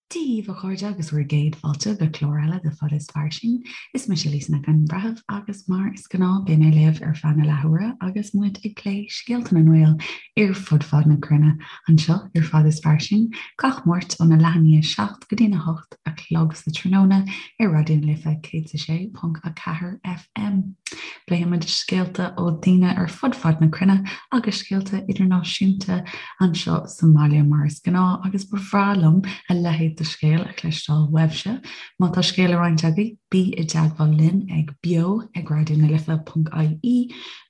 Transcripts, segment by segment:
Dia daoibh a chairde agus bhur gcéad fáilte go clár eile de Fada is Fairsing. Is mise Lisa Nic an Bhreithimh agus mar is gnáth beidh mé libh ar feadh na leathuaire agus muid ag plé scéalta na nGael ar fud fad na cruinne anseo ar Fada is Fairsing gach Máirt óna leath i ndiaidh 7 go dtína 8 a chlog sa tráthnóna ar Raidió na Life 106.4 FM. Pléimid scéalta ó daoine ar fud fad na cruinne agus scéalta idirnáisiúnta anseo sa mbaile mar is gnáth agus ba bhreá liom a leithéid de scéal a chloisteáil uaibhse. Má tá scéal le roinnt agaibh, bí i dteagmháil linn ag beo ag raidionalife.ie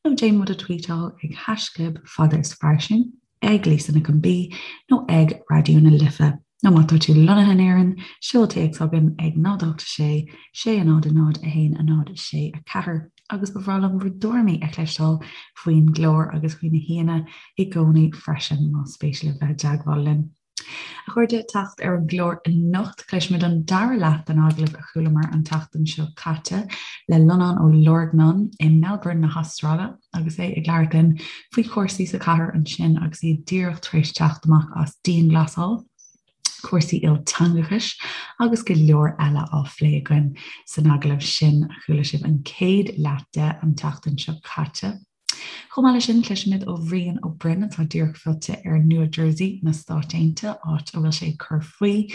nó déan muid a tweetáil ag haischlib fada is fairsing. ag Lisa Nic an B nó ag Raidió na Life. Nó má tá tú lonnaithe in Éirinn, seol téacs chugainn ag 0 8 6 6 0 0 1 0 6 4 agus ba bhreá liom bhur dtuairimí a chloisteáil faoin gclár agus faoi na haíonna i gcónaí freisin más spéis libh bheith i dteagmháil linn. A chairde, teacht ar an gclár anocht, cloisfimid an dara leath den agallamh a chualamar an tseachtain seo caite le Lonán Ó Lorgnáin i Melbourne na hAstráile agus é ag labhairt linn faoi chúrsaí sa chathair ansin agus iad díreach tar éis teacht amach as dianghlasáil, cúrsaí ilteangachais agus go leor eile á phlé againn san agallamh sin a chuala sibh an chéad leath de an tseachtain seo caite. Chomh maith leis sin, cloisfimid ó Bhrian Ó Broin atá díreach fillte ar Nua Jersey na Stáit Aontaithe, áit a bhfuil sé ag cur faoi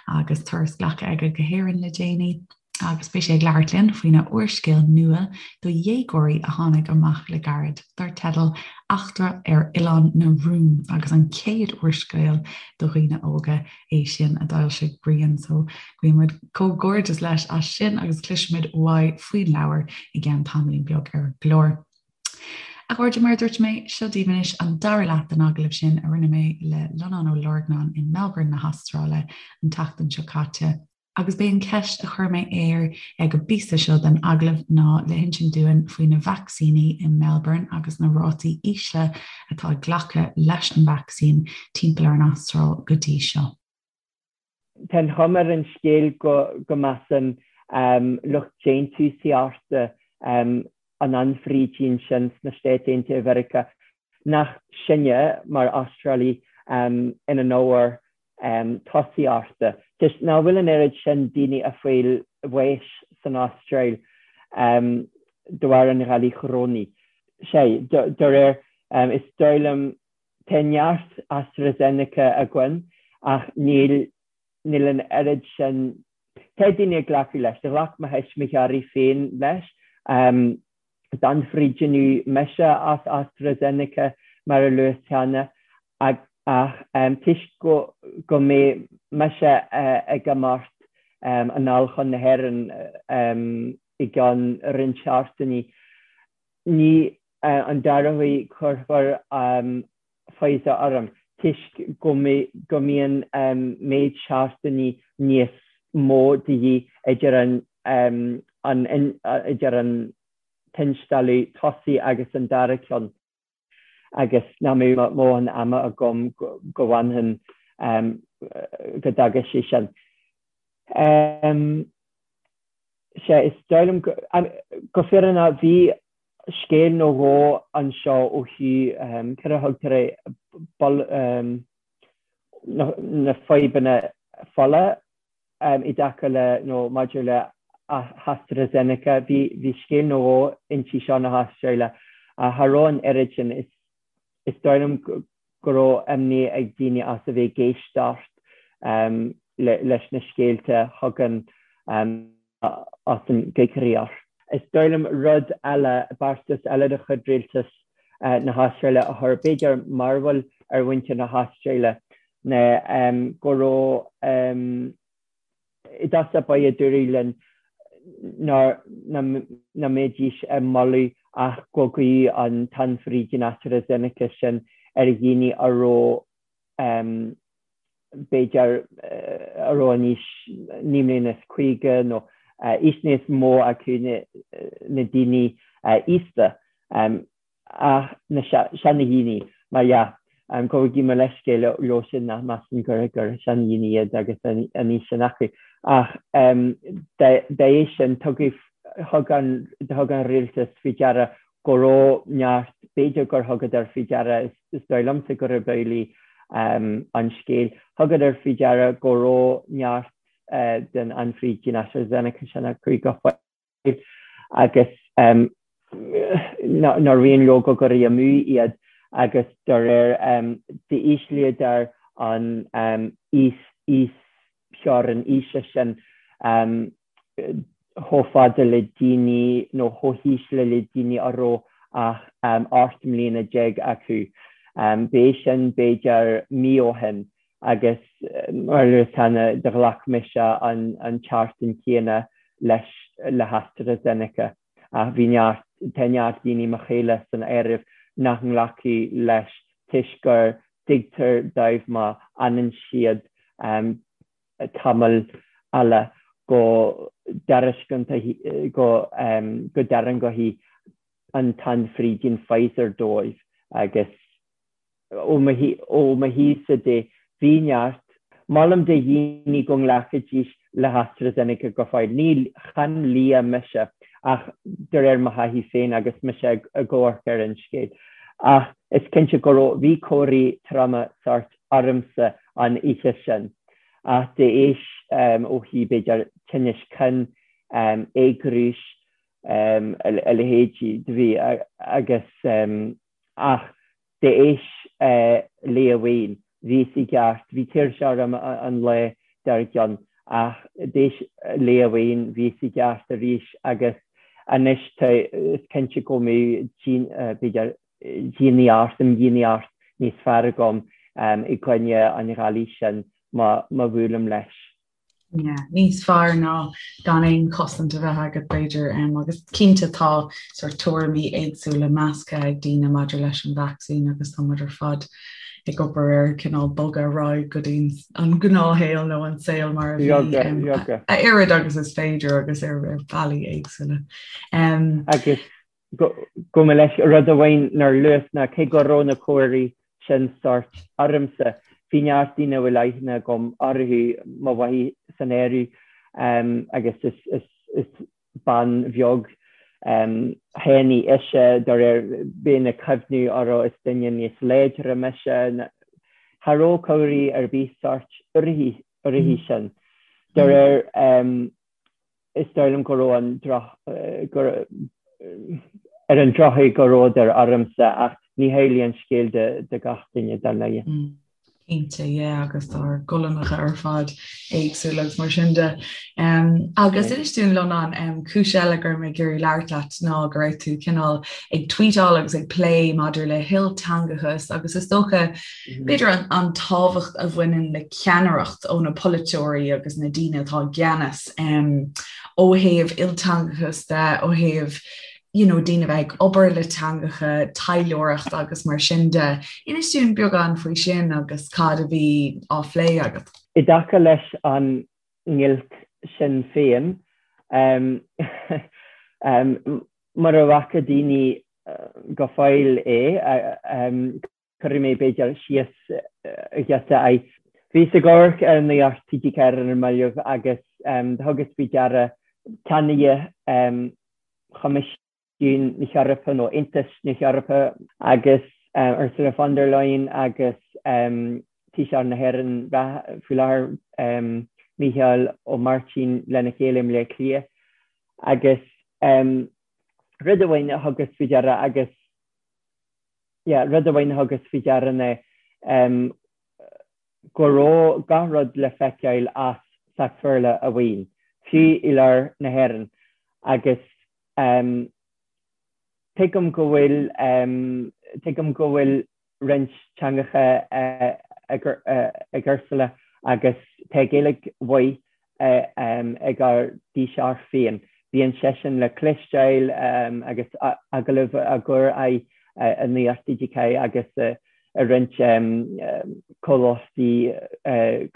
agus turas glactha aige go hÉirinn le déanaí, agus beidh sé ag labhairt linn faoina úrscéal nua do dhéagóirí a tháinig amach le gairid, dar teideal Eachtra ar Oileán na Rún, agus an chéad úrscéal do dhaoine óga é sin a d'fhoilsigh Brian. So guímid comhghairdeas leis as sin agus cloisfimid uaidh faoin leabhar i gceann tamaillín beag ar an gclár. A chairde, mar a dúirt mé, seo daoibh anois an dara leath den agallamh sin a rinne mé le Lonán Ó Lorgnáin in Melbourne na hAstráile an tseachtain seo caite, agus b'é an cheist a chuir mé air ag an bpíosa seo den agallamh ná le hinsint dúinn faoi na vacsaíní i Melbourne agus na rátaí ísle atá ag glacadh leis an vacsaín timpeall ar an Astráil go dtí seo. Tá an chuma ar an scéal go measann lucht déantúsaíochta an anfhrídín sin sna Stáit Aontaithe Mheiriceá nach sinne mar Astrálaigh ina n-ábhar tosaíochta, toisc nach bhfuil an oiread sin daoine ag fáil bháis san Astráil de bharr an ghalair chorónaigh. Sea, de réir, is dóigh liom, tá neart AstraZeneca againn ach níl, níl an oiread sin, tá daoine ag glacadh leis, ghlac mo thuismitheoirí féin leis. D'ionfhabhtaíodh mise as AstraZeneca, mar a luas cheana, ach toisc go mbeidh mise ag imeacht anall chun na hÉireann i gceann roinnt seachtainí, ní an dara huair cuirfear Pfizer orm, toisc go mbíonn méid seachtainí níos mó de dhíth idir an idir an t-instealladh tosaigh agus an dara ceann agus nach mbeadh mo dhóthain ama agam go bhfanfainn go dtaga sé sin. Sea, is dóigh liom go fírinneach bhí scéal nó dhó anseo ó thaobh céard a thugtar é, na fadhbanna fola i dtaca le nó maidir le hAstraZeneca. Bhí scéal nó dhó inti seo na hAstráile ach cha raibh an oiread sin. Is dóigh liom go raibh imní ag daoine as a bheith ag éisteacht leis na scéalta a thagann as an gcoigríoch. Is dóigh liom rud eile, beartas eile de chuid rialtas na hAstráile a chuir b'fhéidir mearbhall ar mhuintir na hAstráile ná go raibh i dtosach báire dúradh linn nach mbeidís ag moladh ach go gcuirfí an t-ionfhabhtú AstraZeneca sin ar dhaoine a raibh b'fhéidir a raibh in aois 59 mbliana nó aois níos mó acu na daoine aosta. Ach na seanadhaoine, mar dhea, gabhaigí mo leithscéal leo sin nach measann gur seanadhaoine iad agus an aois sin acu. Ach dá éis sin, tugadh, thug an, thug an rialtas faoi deara go raibh neart, b'fhéidir gur thugadar faoi deara, is dóigh liomsa gurb amhlaidh. an scéal. Thugadar faoi deara go raibh neart den anfhrídín AstraZeneca sin acu go fóill agus nár mhian leo go gcuirfí amú iad agus dá réir d'íslíodar an íostheorainn aoise sin chomh fada le daoine nó chomh híseal le daoine a raibh ach 18 mbliana acu. B'é sin b'fhéidir mí ó shin agus mar a luas cheana do ghlac mise an tseachtain chéanna leis le hAstraZeneca ach bhí neart, tá neart daoine, mo chéile san áireamh, nach nglacfaidh leis toisc gur tuigtear dóibh má fhanann siad tamall eile go dtairisceoidh go dtarraingeoidh an t-anfhrídín Pfizer dóibh agus ó mo thaobhsa de bhí neart. Molaim do dhaoine go nglacfaidís le hAstraZeneca go fóill. Ní, chan lia mise ach de réir mo thaithí féin agus mise ag amharc ar an scéal. Ach is cinnte go raibh, bhí comharthaí troma sóirt ormsa an oíche sin. Ach d'éis ó thaobh b'fhéidir tinnis cinn, éagrúis, a leithéidí, do bhí agus ach d'éis lae amháin bhíos i gceart, bhí tuirse orm an lá dár gcionn ach d'éis lae amháin bhíos i gceart arís agus anois tá, is cinnte go mbeidh b'fhéidir dianaitheoireacht, imdhíonaitheoireacht níos fearr agam i gcoinne an ghalair sin má bhuailim leis. Yeah, níos fearr ná gan aon chosaint a bheith agat b'fhéidir agus cinnte tá sort tuairimí éagsúla measctha ag daoine maidir leis an vacsaín agus tá muid ar fad ag obair ar cineál bogadh ar aghaidh go dtí an gnáthshaol nó an saol mar a bhí a oiread agus is féidir agus ar bhealaí éagsúla. Agus Gabh mo leithscéal, rud amháin nár luas ná cé go raibh na comharthaí sin sórt ormsa, bhí neart daoine a bhfuil aithne agam orthu, mo mháthair san áireamh, agus is bean bheag thanaí ise, dá réir bheinn ag cuimhniú orthu, is duine níos láidre mise, cha raibh comharthaí ar bith sórt uirthi sin. Dá réir. is dóigh liom go raibh an droch, go, ar an drochuair go rabhadar ormsa ach ní hamhlaidh an scéal do gach duine dar ndóigh. Cinnte, yeah, agus tá ár gcolainneacha ar fad éagsúil agus mar sin de. Um, agus inis dúinn Lonán, um, cúis eile go raibh mé ag iarraidh labhairt leat ná go raibh tú cineál ag tweetáil agus ag plé maidir le hilteangachas agus is dócha B'fhéidir an an tábhacht a bhaineann le ceannaireacht ó na polaiteoirí agus na daoine atá i gceannas ó thaobh ilteangachas de, ó thaobh you know, daoine a bheith ag obair le teangacha, taidhleoireacht agus mar sin de. Inis dúinn beagán faoi sin agus cad a bhí á phlé agat. I dtaca leis an ngiolc sin féin, mura bhfaca daoine go fóill é, Cuirfidh mé, b'fhéidir, síos giota é. Bhíos ag amharc ar nuacht TG4 ar na mallaibh agus do thugas faoi deara ceannaire Choimisiún na hEorpa nó Aontas na hEorpa agus Ursula von der Leyen agus Taoiseach na hÉireann faoi láthair, Mícheál Ó Máirtín lena chéile i mBleá Cliath agus rud amháin a thugas faoi deara agus yeah, rud amháin a thugas faoi deara ná go raibh gach rud le feiceáil as Sacs-Bhéarla amháin, fiú i lár na hÉireann, agus tuigim go bhfuil tuigim go bhfuil roinnt teangacha ag Ursula agus tá Gaeilge mhaith ag ár dTaoiseach féin. Bíonn seisean le cloisteáil agus agallaimh á gcur air i Nuacht TG4 agus i roinnt comhlachtaí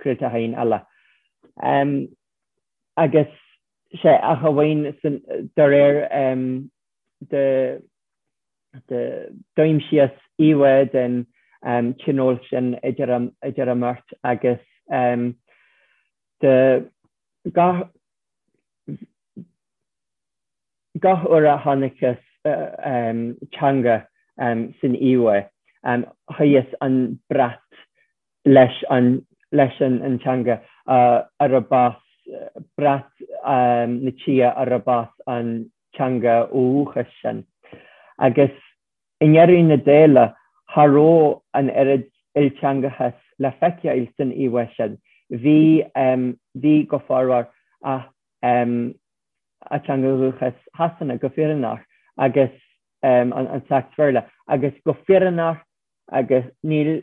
craolacháin eile. Agus sé ach amháin de réir de D'aimsíos íomhá den tionól sin idir an mbeirt agus de gach gach uair a chonaiceas teanga san íomhá, shuíos an brat. Leis an leis an teanga arb as brat na tíre arb as an teanga ó dhúchas sin. Agus i ndeireadh na dála, cha raibh an oiread ilteangachas le feiceáil san íomhá sin. Bhí, bhí go formhór, ach a teanga dhúchas Shasana go fírinneach agus an Sacs-Bhéarla agus go fírinneach agus níl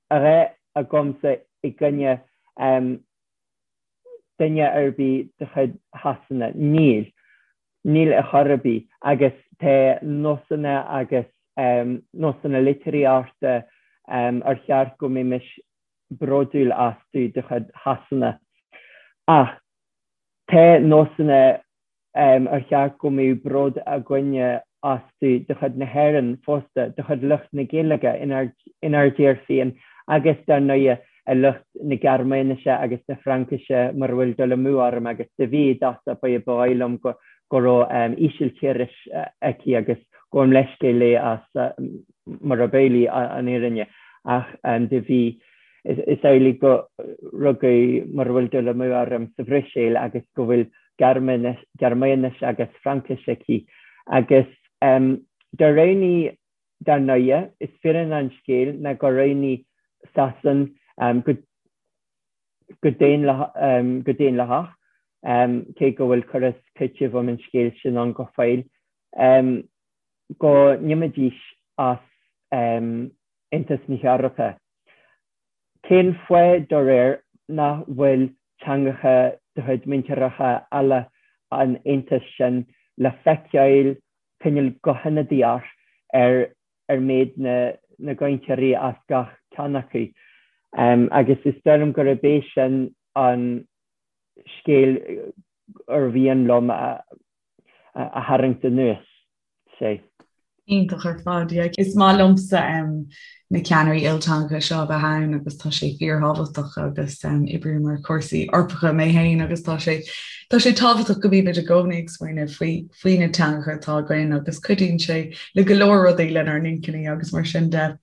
a dhath agamsa i gcoinne duine ar bith de chuid Shasana. Níl. Níl ar chor ar bith. Agus tá nósanna agus nósanna litríochta ar cheart go mbeimis bródúil astu de chuid Shasana. Ach tá nósanna ar cheart go mbeadh bród againne astu de chuid na hÉireann fosta, de chuid lucht na Gaeilge inár dtír féin agus, dar ndóighe, lucht na Gearmáinise agus na Fraincise, mura bhfuil dul amú orm, agus do bhí i dtosach ba dhóigh liom go raibh Ísiltíris aici agus gabhaim leithscéal léi as murab amhlaidh an fhírinne, ach do bhí. Is amhlaidh go rugadh, mura bhfuil dul amú orm, sa Bhruiséil agus go bhfuil Gearmáinis agus Fraincis aici. Agus do roghnaigh, dar ndóighe, is fírinne an scéil ná gur roghnaigh Sasain go daonlathach, cé go bhfuil cur is cúiteamh um an scéal sin ann go fóill, go n-imeoidís as Aontas na hEorpa. Cén fáth, dá réir, nach bhfuil teangacha de chuid míntíreacha eile an Aontais sin le feiceáil cineál go hionadaíoch ar ar méid na na gcainteoirí as gach ceann acu? Agus is dóigh liom gurb é sin an scéal ar mhian liom a tharraingt anuas. sé. Iontach ar fad, yeah. Is maith liomsa na ceannairí ilteangacha seo a bheith ann agus tá sé fíorthábhachtach agus oibrím ar chúrsaí Eorpacha mé féin agus tá sé tá sé tábhachtach go mbímid i gcónaí ag smaoineamh faoi faoi na teangacha atá againn agus cuidíonn sé le go leor rudaí lenár n-inchinní agus mar sin de.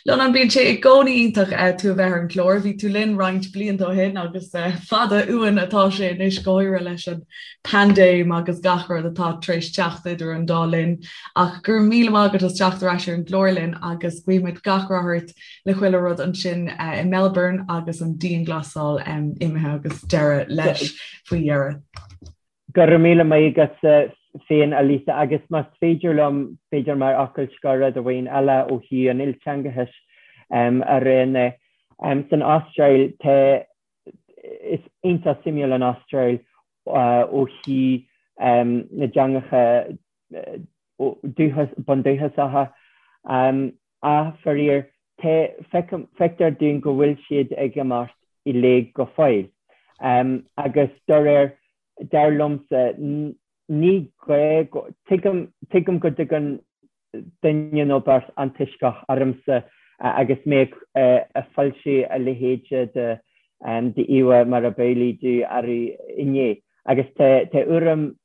Lonán, bíonn sé i gcónaí iontach tú a bheith ar an gclár. Bhí tú linn roinnt blianta ó shin agus fada uainn atá sé anois go háirithe leis an paindéim agus gach rud atá tar éis teacht idir an dá linn. Ach go raibh míle maith agat as teacht ar ais ar an gclár linn agus guímid gach rath ort le chuile rud ansin i Melbourne agus an dianghlasáil imithe agus deireadh leis faoi dheireadh. Go raibh míle maith agatsa féin, a Lisa, agus más féidir liom, b'fhéidir mar fhocal scoir rud amháin eile ó thaobh an ilteangachais a rá ná, san Astráil tá Is iontach suimiúil an Astráil ó thaobh na dteangacha bundúchasacha. Ach faraor, feictear dúinn go bhfuil siad ag imeacht i léig go fóill. Agus dá réir, dar liomsa, ní gá go, tuigim go dtugann duine nó beirt antoisceach ormsa agus mé ag foilsiú a leithéide de d'íomhá mar ab amhlaidh domh arú inné. Agus tá urraim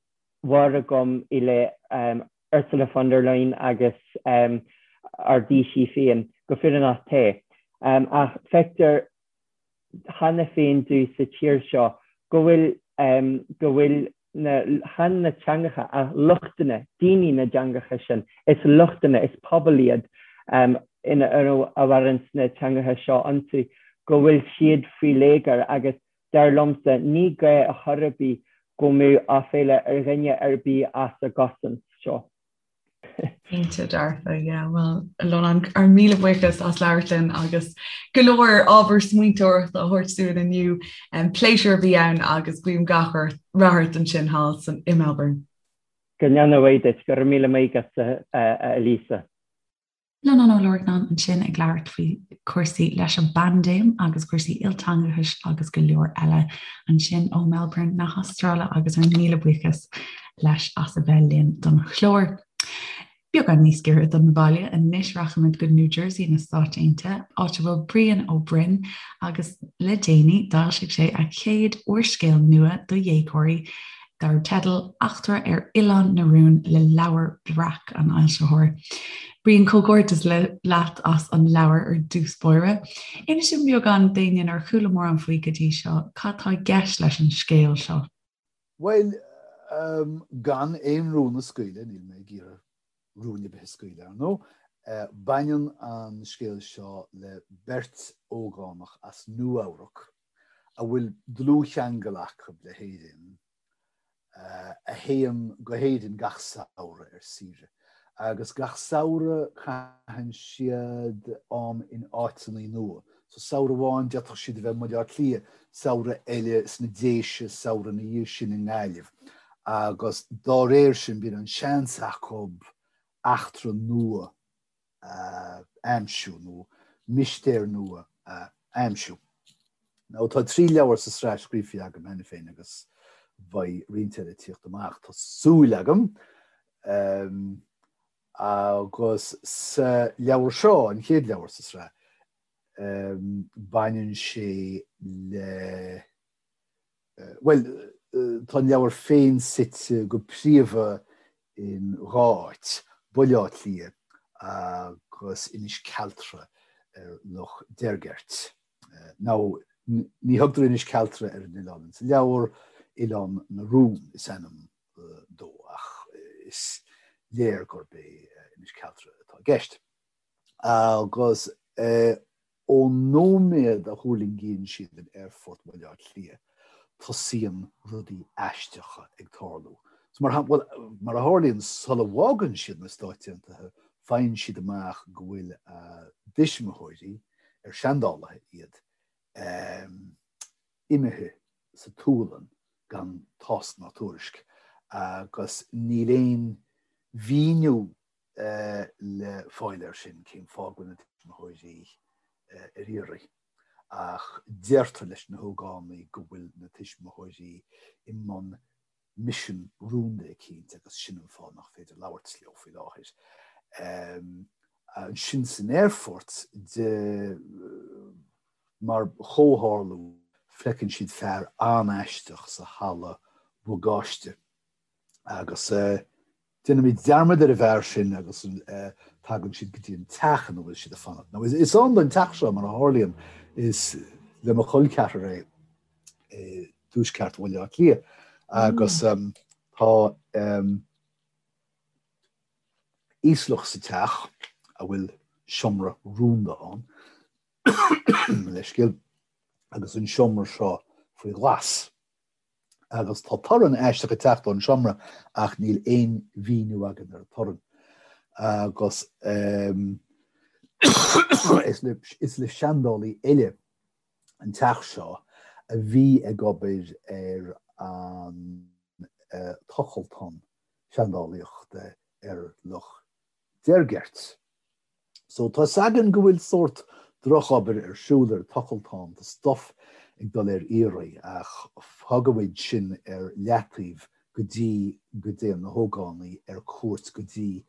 mhór agam i leith Ursula von der Leyen agus ár dTaoisigh féin, go fírinneach tá. Ach feictear cheana féin domh sa tír seo go bhfuil, go bhfuil na, chan na teangacha ach luchtanna, daoine na dteangacha sin, is luchtanna, is pobal iad ina, a mhaireann na teangacha seo iontu, go bhfuil siad faoi léigear agus dar liomsa ní gá a chor ar bith go mbeadh aiféala ar dhuine ar bith as a gcosaint seo. Cinnte dearfa, yeah. Bhuel, a Lonán, ár míle buíochas as labhairt linn agus go leor ábhar smaointeoireachta a thabhairt dúinn inniu. Pléisiúr a bhí ann agus guím gach rath ort ansin thall san i Melbourne. Go ndéana a mhaith duit. Go raibh míle maith agat, a Lisa. Lonán Ó Lorcnáin ansin ag labhairt faoi chúrsaí leis an bpaindéim agus cúrsaí ilteangachais agus go leor eile ansin ó Melbourne na hAstráile agus ár míle buíochas leis as a bheith linn don chlár. Beagán níos giorra don bhaile anois rachaimid go New Jersey na Stáit Aontaithe, áit a bhfuil Brian Ó Broin agus le déanaí d'fhoilsigh sé a chéad úrscéal nua do dhéagóirí dar teideal Eachtra ar Oileán na Rún le Leabhar Breac an fhoilsitheoir. Brian, comhghairdeas leat as an leabhar ar dtús báire. Inis dúinn beagán d'éinne nár chuala mórán faoi go dtí seo, cad tá i gceist leis an scéal seo? Bhuel, gan aon rún a scaoileadh, níl mé ag iarraidh rúin ar bith a scaoileadh, ar ndóigh, baineann an scéal seo le beirt ógánach as Nua-Eabhrac a bhfuil dlúthcheangal acu le hÉirinn, a théann go hÉirinn gach samhradh ar saoire. Agus gach samhradh caitheann siad am in áiteanna nua. So samhradh amháin d'fhéadfadh siad a bheith i mBaile Átha Cliath, samhradh eile sna Déise, samhradh ina dhiaidh sin i nGaillimh. Agus dá réir sin bíonn an seans acu eachtra nua a aimsiú nó mistéir nua a aimsiú. Now tá 3 leabhar sa sraith scríofa agam cheana féin agus beidh roinnt eile ag tíocht amach, tá súil agam. Agus sa leabhar seo, an chéad leabhar sa sraith, baineann sé le, bhuel, tá an leabhar féin suite go príomha in dhá áit, Baile Átha Cliath agus Inis Cealtra ar Loch Deirgeirt. Now, ní thugtar Inis Cealtra ar an oileán sa leabhar, Oileán na Rún is ainm dó, ach is léir gurb é Inis Cealtra atá i gceist. Agus ón nóiméad a thuirlingíonn siad in Aerfort Bhaile Átha Cliath, tosaíonn rudaí aisteacha ag tarlú. So mar bhuel, mar a tharlaíonn, sula bhfágann siad na Stáit Aontaithe, faigheann siad amach go bhfuil a dtuismitheoirí, ar seandálaithe iad, imithe sa tSualainn gan tásc ná tuairisc, agus níl aon mhíniú le fáil air sin, cén fáth go bhfuil na tuismitheoirí ar iarraidh. Ach deirtear leis na hógánaigh go bhfuil na tuismitheoirí i mbun misean rúnda eicínt agus sin an fáth nach féidir labhairt leo faoi láthair. Ansin san aerfort, de mar chomhtharlú, feiceann siad fear an-aisteach sa halla bagáiste agus déanaimid dearmad ar an bhfear sin agus tagann siad go dtí an teach ina bhfuil siad ag fanacht. Now is ann don teach seo mar a tharlaíonn, is le mo chol ceathrar é i dtuaisceart Bhaile Átha Cliath agus tá íoslach sa teach a bhfuil seomra rúnda ann, leithscéal, agus an seomra seo faoi ghlas. Agus tá torann aisteach ag teacht ón seomra ach níl aon mhíniú againn ar an torann. Agus is le seandálaí eile an teach seo a bhí ag obair ar an tochaltán seandálaíochta ar Loch Deirgeirt. So tá 'fhios againn go bhfuil sórt drochobair ar siúl ar an tochaltán, tá stuff ag dul ar iarraidh ach fágfaimid sin ar leataobh go dtí go dtéann na hógánaigh ar cuairt go dtí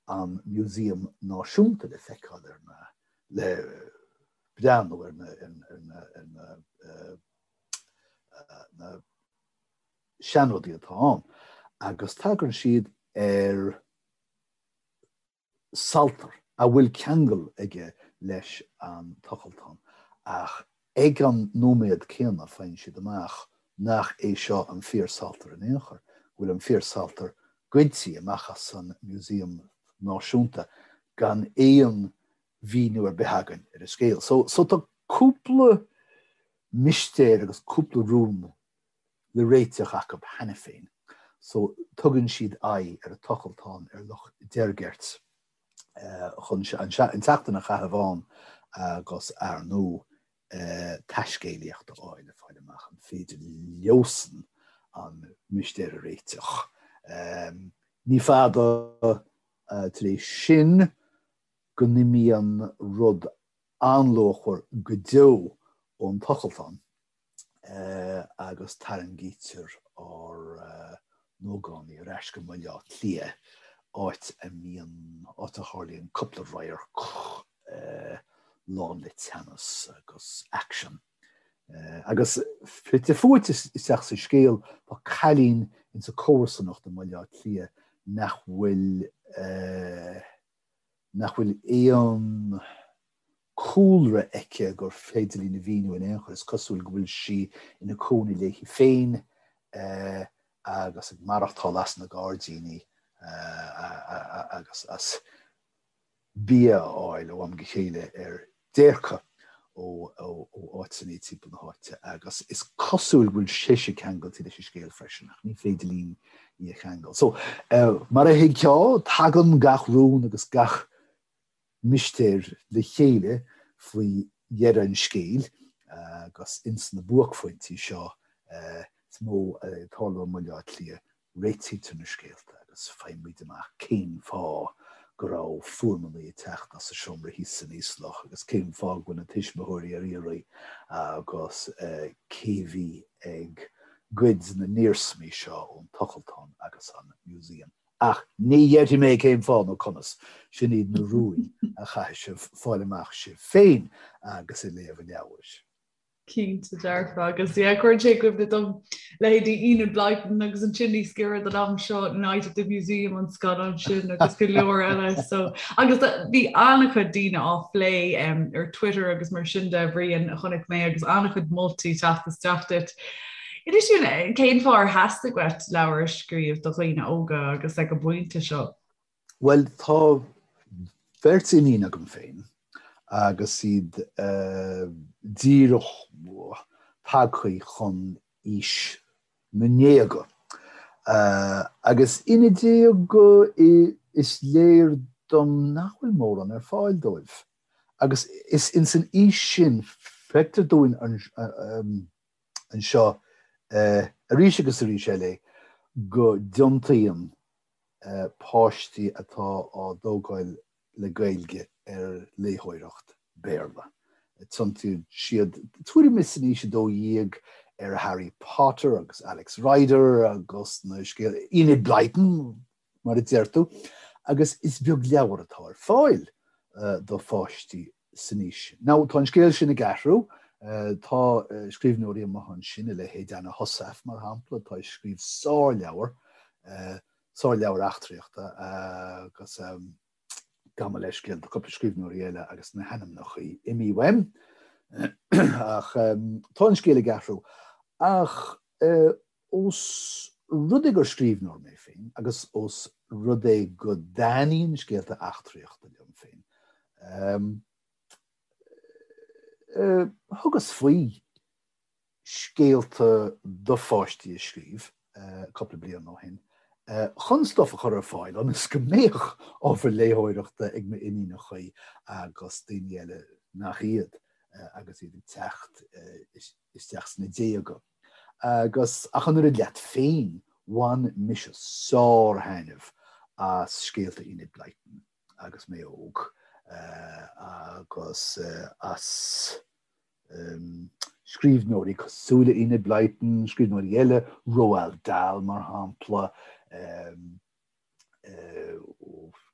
an Museum Náisiúnta le feiceáil ar na, le breathnú ar na, ar na, ar na, na seanrudaí atá ann agus tagann siad ar saltar a bhfuil ceangal aige leis an tochaltán, ach ag an nóiméad céanna faigheann siad amach nach é seo an fíor-saltar in aon chor, go bhfuil an fíor-saltar goidte amach as an Museum Náisiúnta gan aon mhíniú ar bith againn ar an scéal. So, so tá cúpla mistéir agus cúpla rún le réiteach acu cheana féin so tugann siad aghaidh ar an tochaltán ar Loch Deirgeirt chun an tseachtain a chaitheamh ann agus ar ndóigh taiscéalaíocht a fháil le fáil amach an féidir leosan an mistéir a réiteach. Ní fada tar éis sin go n-imíonn rud an-luachmhar go deo ón tochaltán. agus tarraingítear ár n-ógánaigh ar ais go mBaile Átha Cliath, áit a mbíonn, áit a tharlaíonn cúpla radharc lán le teannas agus aicsean. Agus fite fuaite isteach sa scéal tá cailín insa comharsanacht i mBaile Átha Cliath nach bhfuil. nach bhfuil aon cúlra aici gur féidir linn a mhíniú in aon chor. Is cosúil go bhfuil sí ina cónaí léi féin agus ag maireachtáil as na gairdíní agus as bia a fháil ó am go chéile ar déirce ó áiteanna timpeall na háite agus is cosúil go bhfuil sise ceangailte leis an scéal freisin ach ní féidir linn í a cheangal. So, mar a thuigfeá, tagann gach rún agus gach mistéir le chéile faoi dheireadh an scéil agus ins na buaicphointí seo is mó ag tarlú i mBaile Átha Cliath réitítear na scéalta agus faighimid amach cén fáth go raibh fuaimeanna ag teacht as an seomra thíos san íoslach agus cén fáth go bhfuil na tuismitheoirí ar iarraidh agus cé bhí ag goid na n-iarsmaí seo ón tochaltán agus an museum. Ach ní dhéarfaidh mé cén fáth nó conas, sin iad na rúin a chaithfidh sibh fáil amach sibh féin agus ag léamh an leabhair. Cinnte dearfa agus yeah cuireann sé i gcuimhne dom leithéidí Enid Blyton agus ansin níos giorra don am seo Night at the Museum an scannán sin agus go leor eile so agus bhí an-chuid daoine á phlé um, ar Twitter agus mar sin de Bhriain a chonaic mé agus an-chuid moltaí teacht isteach duit. Inis dúinn eh, cén fáth ar theastaigh uait leabhar a scríobh do dhaoine óga agus ag an bpointe seo? Bhuel, tá beirt iníon agam féin agus iad díreach tagtha chun aois na ndéaga. Agus ina déaga is léir dom nach bhfuil mórán ar fáil dóibh. Agus is ins an aois sin, feictear dúinn anseo arís agus arís eile go dtiontaíonn páistí atá á dtógáil le Gaeilge ar léitheoireacht Béarla. Tiontaíonn siad tuairim is in aois 12 ar Harry Potter agus Alex Rider agus na scéal Enid Blyton mar a deir tú, agus is beag leabhar atá ar fáil do pháistí san aois sin. Now, tá an scéal sin ag athrú, tá scríbhneoirí amuigh ansin, a leithéid Anna Heussaff, mar shampla, atá ag scríobh sárleabhar, sárleabhar eachtraíochta agus gabh mo leithscéal, tá cúpla scríbhneoirí eile agus na hainmneacha imithe uaim. Ach tá an scéal ag athrú. Ach Ós rud é gur scríbhneoir mé féin, agus ós rud é go dtaitníonn scéalta eachtraíochta liom féin, thugas faoi scéalta do pháistí a scríobh cúpla bliain ó shin chun stuif a chur ar fáil ionas go mbeadh ábhar léitheoireachta ag m'iníonacha agus daoine eile nach iad agus iad ag teacht isteach sna déaga. Agus, ach an oiread leat féin, bhain mise sár-thaitneamh as scéalta Enid Blyton agus mé óg, agus as scríbhneoirí cosúil le Enid Blyton, scríbhneoirí eile, Roald Dahl mar shampla,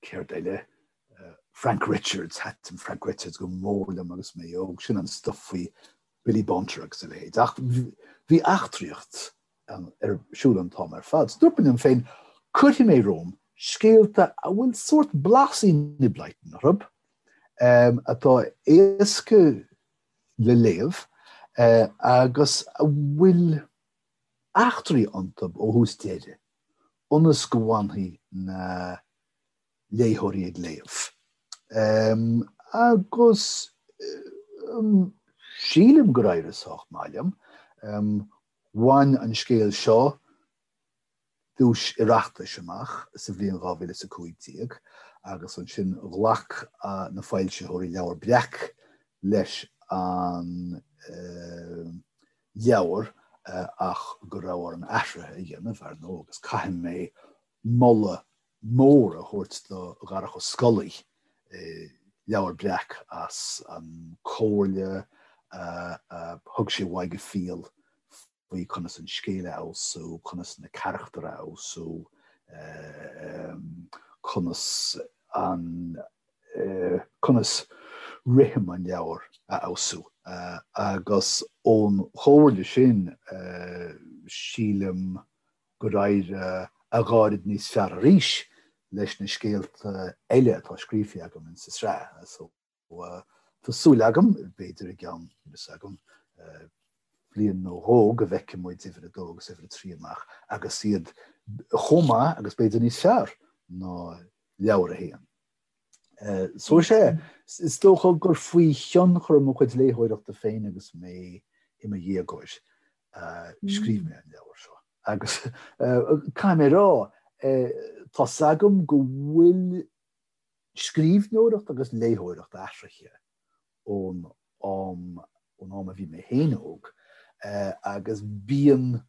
céard eile? Frank Richards, thaitin Frank Richards go mór liom agus mé óg, sin an stuif faoi Billy Bunter agus a leithéid. Ach bhí eachtraíocht ar siúl an t-am ar fad. So dúirt mé liom féin, cuirfidh mé romham scéalta a bhfuil sórt blas Enid Blyton orthu, atá éasca le léamh agus a bhfuil eachtraí iontu ó thús deireadh. ionas go bhfanfaidh na léitheoirí ag léamh. Agus sílim gur éirigh sách maith liom. Bhain an scéal seo duais Oireachtais amach sa bhliain 2015 agus ansin ghlac na foilsitheoirí Leabhar Breac leis an leabhar ach go raibh orm athruithe a dhéanamh, ar ndóigh, agus caithfidh mé moladh mór a thabhairt do Dharach Ó Scolaí, Leabhar Breac, as an comhairle a thug sé uaidh go fial faoi conas an scéal a fheabhsú, conas na carachtair a fheabhsú, conas an conas rithim an leabhair a fheabhsú. Agus ón chomhairle sin, sílim gur éirigh a dhá oiread níos fearr arís. leis na scéalta eile atá scríofa agam insa sraith. So tá súil agam, b'fhéidir i gceann, níl a fhios agam, bliain nó dhó go bhfeicfidh muid uimhir a dó agus uimhir a trí amach agus iad chomh maith agus b'fhéidir níos fearr ná leabhar a haon. So is ea, is dócha gur faoi thionchar mo chuid léitheoireachta féin agus mé i mo dhéagóir a scríobh mé an leabhar seo. Agus caithfidh mé a rá, tá's agam go bhfuil scríbhneoireacht agus léitheoireacht athraithe ón am, ón am a bhí mé féin óg, agus bíonn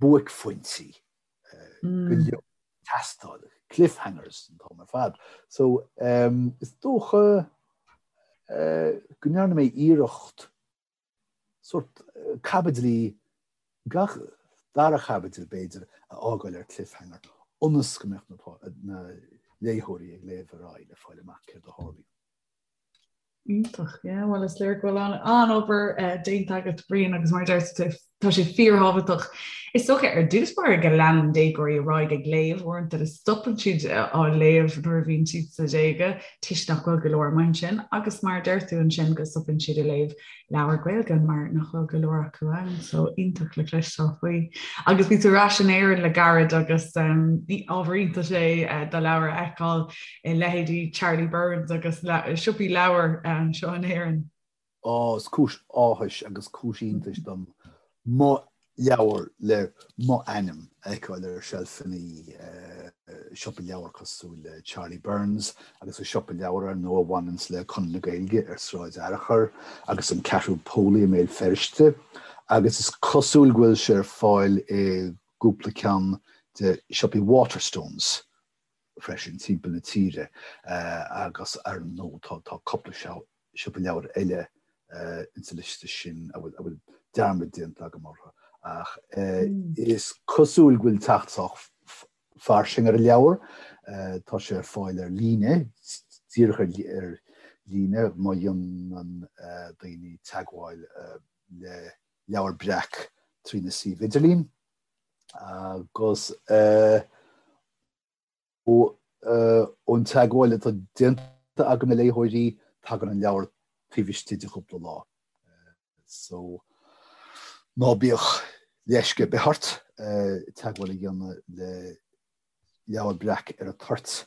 buaicphointí go leor ag teastáil, cliffhangers an t-am ar fad. So is dócha go ndearna mé iarracht sórt caibidlí, gach dara chaibidil b'fhéidir, a fhágáil ar cliffhanger ionas go mbeadh na léitheoirí ag léamh ar aghaidh le fáil amach céard a tharlaíonn. Iontach, yeah, bhuel is léir go bhfuil an-obair déanta agat Brian agus mar a deir tú tá sé fíorthábhachtach. Is dócha ar dtús báire go leanann déagóirí ar aghaidh ag léamh, uaireanta is stopann siad á léamh nuair a bhíonn siad sna déaga toisc nach bhfuil go leor amuigh ansin agus mar a deir tú ansin go stopann siad ag léamh leabhar Gaeilge mar nach bhfuil go leor acu ann, so iontach le cloisteáil faoi. Agus bhí tú ar ais in Éirinn le gairid agus ábhar iontais é do leabhar a fheiceáil i leithéidí Charlie Byrne's agus siopaí leabhar anseo in Éirinn. Á, is cúis áthais agus cúis iontais dom mo leabhar le mo ainm a fheiceáil ar seilfeanna siopa leabhar cosúil le Charlie Byrne's agus an siopa leabhar ar ndóigh a bhaineanns le Conradh na Gaeilge ar Sráid Fhearchair agus an Ceathrú Póilí i mBéal Feirste agus is cosúil go bhfuil sé ar fáil i gcúpla ceann de siopaí Waterstones freisin timpeall na tíre agus ar ndóigh tá cúpla siopa leabhar eile insa liosta sin a bhfuil dearmad déanta agam orthu ach is cosúil go bhfuil teacht sách fairsing ar an leabhar. Tá sé ar fáil ar líne, díreach ar líne má dhéanann daoine teagmháil le Leabhar Breac trína suíomh idirlín agus ón teagmháil atá déanta agam le léitheoirí, tagann an leabhar taobh istigh de chúpla lá. So, ná bíodh leisce ar bith ort teagmháil a dhéanamh le Leabhar Breac ar an toirt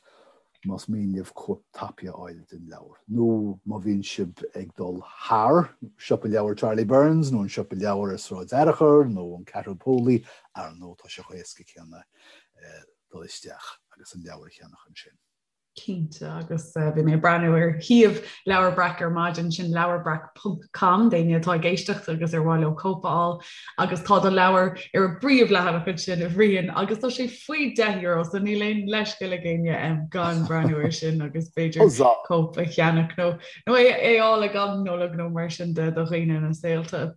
más mian libh cóip tapaidh a fháil den leabhar, nó má bhíonn sibh ag dul thar siopa leabhar Charlie Byrne's nó an siopa leabhar ar Sráid Fhearchair nó an Ceathrú Póilí, ar ndóigh tá sé chomh héasca céanna dul isteach agus an leabhar a cheannach ansin. Cinnte, agus bhí mé ag breathnú ar shuíomh Leabhar Breac ar maidin, sin leabharbreac ponc com, d'éinne atá ag éisteacht agus ar mhaith leo cóip a fháil, agus tá do leabhar ar an bpríomhleathanach ansin, a Bhriain, agus tá sé faoi €10, so níl aon leithscéal ag éinne gan breathnú air sin agus b'fhéidir cóip a cheannach nó nó é a fháil ag am Nollag nó mar sin de do dhaoine ina saolta.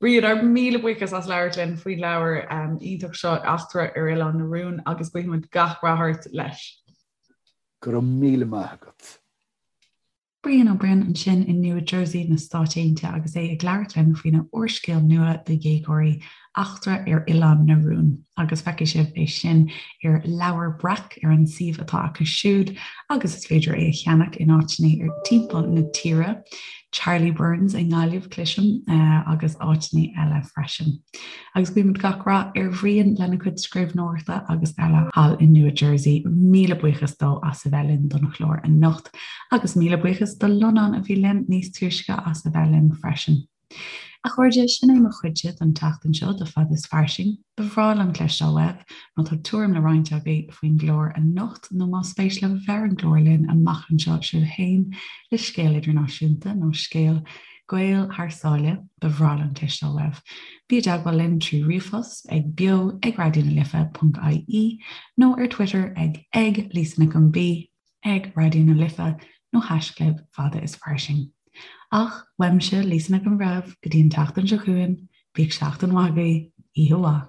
Brian, ár míle buíochas as labhairt linn faoin leabhar iontach seo, Eachtra ar Oileán na Rún, agus guímid gach rath ort leis. Go raibh míle maith agat. Brian Ó Broin ansin i Nua Jersey na Stáit Aontaithe agus é ag labhairt linn faoina úrscéal nua do dhéagóirí, Eachtra ar Oileán na Rún. Agus feicfidh sibh é sin ar Leabhar Breac ar an suíomh atá acu siúd agus is féidir é a cheannach in áiteanna ar timpeall na tíre. Charlie Byrne's i nGaillimh, cloisim, agus áiteanna eile freisin. Agus guímid gach rath ar Bhrian lena chuid scríbhneoireachta agus eile thall i Nua Jersey. Míle buíochas dó as a bheith linn don chlár anocht. Agus míle buíochas do Lonán a bhí linn níos túisce as a bheith linn freisin. A chairde, sin é mo chuidse don tseachtain seo de Fada is Fairsing. Ba bhreá liom cloisteáil uaibh má tá tuairim le roinnt agaibh faoin gclár anocht nó más spéis libh a bheith ar an gclár linn amach anseo sibh féin le scéal idirnáisiúnta nó scéal Gael thar sáile, ba bhreá liom cloisteáil uaibh. Bí i dteagmháil linn trí ríomhphost ag beo ag raidió na life ponc ie nó ar Twitter ag ag Lisa Nic an B. ag Raidió na Life nó haischlib Fada is Fairsing. Ach, uaimse, Lisa Nic an Bhreithimh, go dtí an tseachtain seo chugainn, bíodh seachtain mhaith agaibh, oíche mhaith.